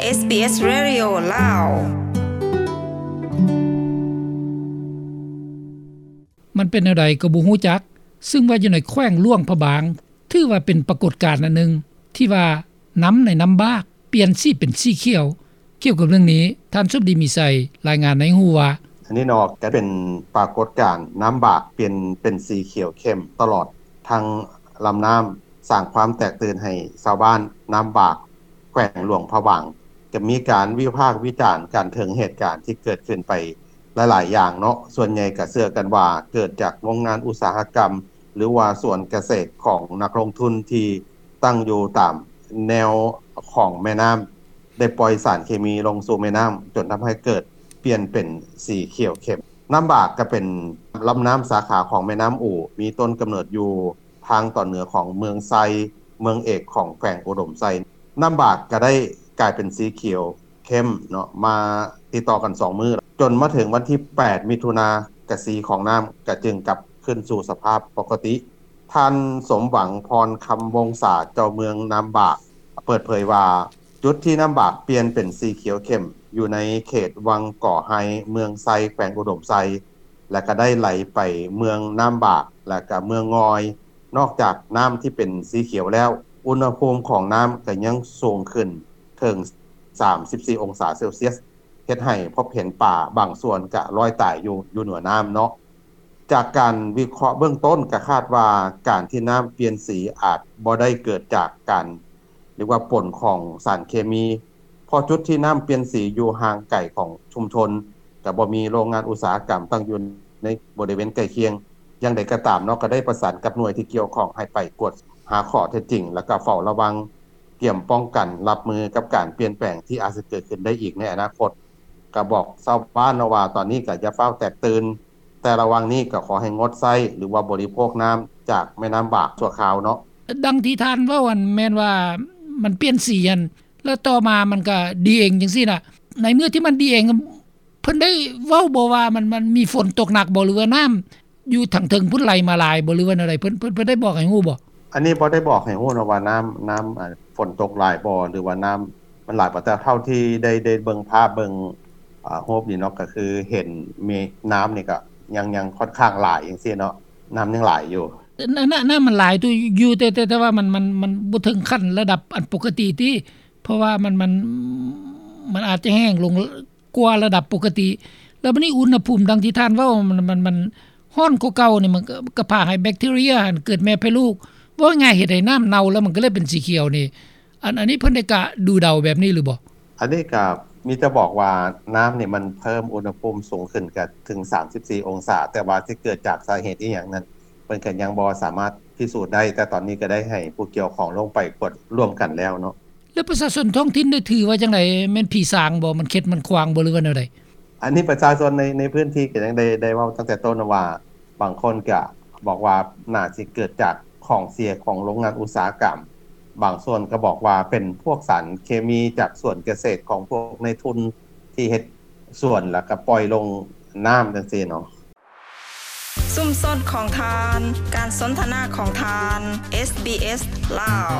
ເອສບີເອສ ເຣດິໂອ ລາວ. ມັນເປັນແນວໃດກໍບໍ່ຮູ້ຈັກ, ຊຶ່ງວ່າຢູ່ໃນແຂວງຫຼວງພະບາງ ຖືວ່າເປັນປາກົດການອັນໜຶ່ງ ທີ່ວ່ານ້ຳໃນນ້ຳບາກປ່ຽນສີເປັນສີຂຽວ. ກ່ຽວກັບເລື່ອງນີ້, ທ່ານສົມດີ ມີໄຊ ລາຍງານໃຫ້ຮູ້ວ່າ, ອັນນີ້ເນາະ ກໍເປັນປາກົດການນ້ຳບາກປ່ຽນເປັນສີຂຽວເຂັ້ມຕະຫຼອດທັງລຳນ້ຳ, ສ້າງຄວາມແຕກຕື່ນໃຫ້ຊາວບ້ານນ້ຳບາກ ແຂວງຫຼວງພະບາງ ກໍມີການວິພາກວິຈານກັນເຖິງເຫດການທີ່ເກີດຂຶ້ນໄປຫຼາຍໆຢ່າງເນາະ. ສ່ວນໃຫຍ່ກໍເຊື່ອກັນວ່າເກີດຈາກໂຮງງານອຸດສາຫະກຳ ຫຼືວ່າສວນກະເສດຂອງນັກລົງທຶນທີ່ຕັ້ງຢູ່ຕາມແນວຂອງແມ່ນ້ຳ ໄດ້ປ່ອຍສານເຄມີລົງສູ່ແມ່ນ້ຳ ຈົນທຳໃຫ້ເກີດປ່ຽນເປັນສີຂຽວເຂັ້ມ. ນ້ຳບາກກໍເປັນລຳນ້ຳສາຂາຂອງແມ່ນ້ຳອູ ມີຕົ້ນກຳເນີດຢູ່ ທາງຕອນເໜືອຂອງເມືອງໄຊ, ເມືອງເອກຂອງແຂວງອຸດົມໄຊ. ນ້ຳບາກກໍໄດ້ກາຍເປັນສີຂຽວເຂັ້ມເນາະ ມາຕິດຕໍ່ກັນສອງມື້ ຈົນມາເຖິງວັນທີແປດ ມິຖຸນາ ກະສີຂອງນ້ຳກໍຈຶ່ງກັບຄືນສູ່ສະພາບປົກກະຕິ. ທ່ານ ສົມຫວັງ ພອນຄຳວົງສາ ເຈົ້າເມືອງນ້ຳບາກ ເປີດເຜີຍວ່າ ຈຸດທີ່ນ້ຳບາກປ່ຽນເປັນສີຂຽວເຂັ້ມ ຢູ່ໃນເຂດວັງກໍໄຮ ເມືອງໄຊ ແຂວງອຸດົມໄຊ ແລະ ກໍໄດ້ໄຫຼໄປເມືອງນ້ຳບາກ ແລະ ກໍເມືອງງອຍ. ນອກຈາກນ້ຳທີ່ເປັນສີຂຽວແລ້ວ, ອຸນຫະພູມຂອງນ້ຳກໍຍັງສູງຂຶ້ນເຖິງສາມສິບສີ່ອົງສາເຊລຊຽສ, ເຮັດໃຫ້ພົບເຫັນປາບາງສ່ວນກະລອຍຕາຍຢູ່ ຢູ່ເໜືອນ້ຳເນາະ. ຈາກການວິເຄາະເບື້ອງຕົ້ນ ກະຄາດວ່າການທີ່ນ້ຳປ່ຽນສີອາດບໍ່ໄດ້ເກີດຈາກການ ຫຼືວ່າປົນຂອງສານເຄມີ ເພາະຈຸດທີ່ນ້ຳປ່ຽນສີຢູ່ຫ່າງໄກຂອງຊຸມຊົນ, ກະບໍ່ມີໂຮງງານອຸດສາຫະກຳຕັ້ງຢູ່ໃນບໍລິເວນໃກ້ຄຽງ. ຢ່າງໃດກໍຕາມເນາະ, ກໍໄດ້ປະສານກັບໜ່ວຍທີ່ກ່ຽວຂ້ອງໃຫ້ໄປກວດຫາຂໍ້ເທັດຈິງ ແລ້ວກໍເຝົ້າລະວັງ, ກຽມປ້ອງກັນຮັບມືກັບການປ່ຽນແປງທີ່ອາດຈະເກີດຂຶ້ນໄດ້ອີກໃນອະນາຄົດ. ກໍບອກຊາວບ້ານເນາະວ່າ ຕອນນີ້ກໍຢ່າຟ້າວແຕກຕື່ນ, ແຕ່ລະຫວ່າງນີ້ກໍຂໍໃຫ້ງົດໃຊ້ ຫຼືວ່າບໍລິໂພກນ້ຳຈາກແມ່ນ້ຳບາກຊົ່ວຄາວເນາະ. ດັ່ງທີ່ທ່ານເວົ້າຫັ້ນ ແມ່ນວ່າມັນປ່ຽນສີຫັ້ນ ແລ້ວຕໍ່ມາມັນກໍດີເອງຈັ່ງຊີ້ນະ. ໃນເມື່ອທີ່ມັນດີເອງ ເພິ່ນໄດ້ເວົ້າບໍ່ວ່າມັນ ມັນມີຝົນຕົກໜັກບໍ່ ຫຼືວ່ານ້ຳຢູ່ທາງເທິງພຸ້ນໄຫຼມາຫຼາຍບໍ່ ຫຼືວ່າແນວໃດ? ເພິ່ນ ເພິ່ນ ເພິ່ນໄດ້ບອກໃຫ້ຮູ້ບໍ່? ອັນນີ້ບໍ່ໄດ້ບອກໃຫ້ຮູ້ເນາະວ່ານ້ຳ ນ້ຳ ອາ ຝົນຕົກຫຼາຍບໍ່ ຫຼືວ່ານ້ຳມັນຫຼາຍບໍ່, ແຕ່ເທົ່າທີ່ໄດ້ ໄດ້ເບິ່ງພາບ ເບິ່ງ ອາ ຮູບນີ້ເນາະ ກໍຄືເຫັນມີນ້ຳນີ້ກໍຍັງ ຍັງຂ້ອນຂ້າງຫຼາຍຈັ່ງຊີ້ເນາະ, ນ້ຳຍັງຫຼາຍຢູ່. ນ້ຳ ນ້ຳມັນຫຼາຍຢູ່ ແຕ່ ແຕ່ ແຕ່ວ່າມັນ ມັນ ມັນບໍ່ເຖິງຂັ້ນລະດັບອັນປົກກະຕິຕິ ເພາະວ່າມັນ ມັນ ມັນອາດຈະແຫ້ງລົງ ກວ່າລະດັບປົກກະຕິ. ແລ້ວບັດນີ້ອຸນຫະພູມ ດັ່ງທີ່ທ່ານເວົ້າ ມັນ ມັນ ມັນຮ້ອນກວ່າເກົ່ານີ້ ມັນກໍ ກໍພາໃຫ້ແບັກທີເຣຍຫັ້ນເກີດແມ່ແຜ່ລູກ. ເວົ້າງ່າຍໆ ເຮັດໃຫ້ນ້ຳເນົ່າ ແລ້ວມັນກໍເລີຍເປັນສີຂຽວນີ້. ອັນ ອັນນີ້ເພິ່ນໄດ້ກະດູເດົາແບບນີ້ຫຼືບໍ່? ອັນນີ້ກໍມີແຕ່ບອກວ່ານ້ຳນີ້ມັນເພີ່ມອຸນຫະພູມສູງຂຶ້ນກໍເຖິງສາມສິບສີ່ອົງສາ, ແຕ່ວ່າຊິເກີດຈາກສາເຫດອີ່ຫຍັງນັ້ນ ເພິ່ນກໍຍັງບໍ່ສາມາດພິສູດໄດ້, ແຕ່ຕອນນີ້ກໍໄດ້ໃຫ້ຜູ້ກ່ຽວຂ້ອງລົງໄປກວດຮ່ວມກັນແລ້ວເນາະ. ແລ້ວປະຊາຊົນທ້ອງຖິ່ນໄດ້ຖືວ່າຈັ່ງໃດ? ແມ່ນຜີສາງບໍ່? ມັນເຂັດມັນຂວາງບໍ່ ຫຼືວ່າແນວໃດ? ອັນນີ້ປະຊາຊົນໃນ ໃນພື້ນທີ່ກໍຍັງໄດ້ ໄດ້ເວົ້າຕັ້ງແຕ່ຕົ້ນວ່າ ບາງຄົນກໍບອກວ່າໜ້າຊິເກີດຈາກຂອງເສຍຂອງໂຮງງານອຸດສາຫະກຳ, ບາງສ່ວນກໍບອກວ່າເປັນພວກສານເຄມີຈາກສວນກະເສດຂອງພວກນາຍທຶນທີ່ເຮັດສວນ ແລ້ວກໍປ່ອຍລົງນ້ຳຈັ່ງຊີ້ເນາະ. ຊຸມຊົນຂອງທ່ານ, ການສົນທະນາຂອງທ່ານ, ເອສບີເອສ ລາວ.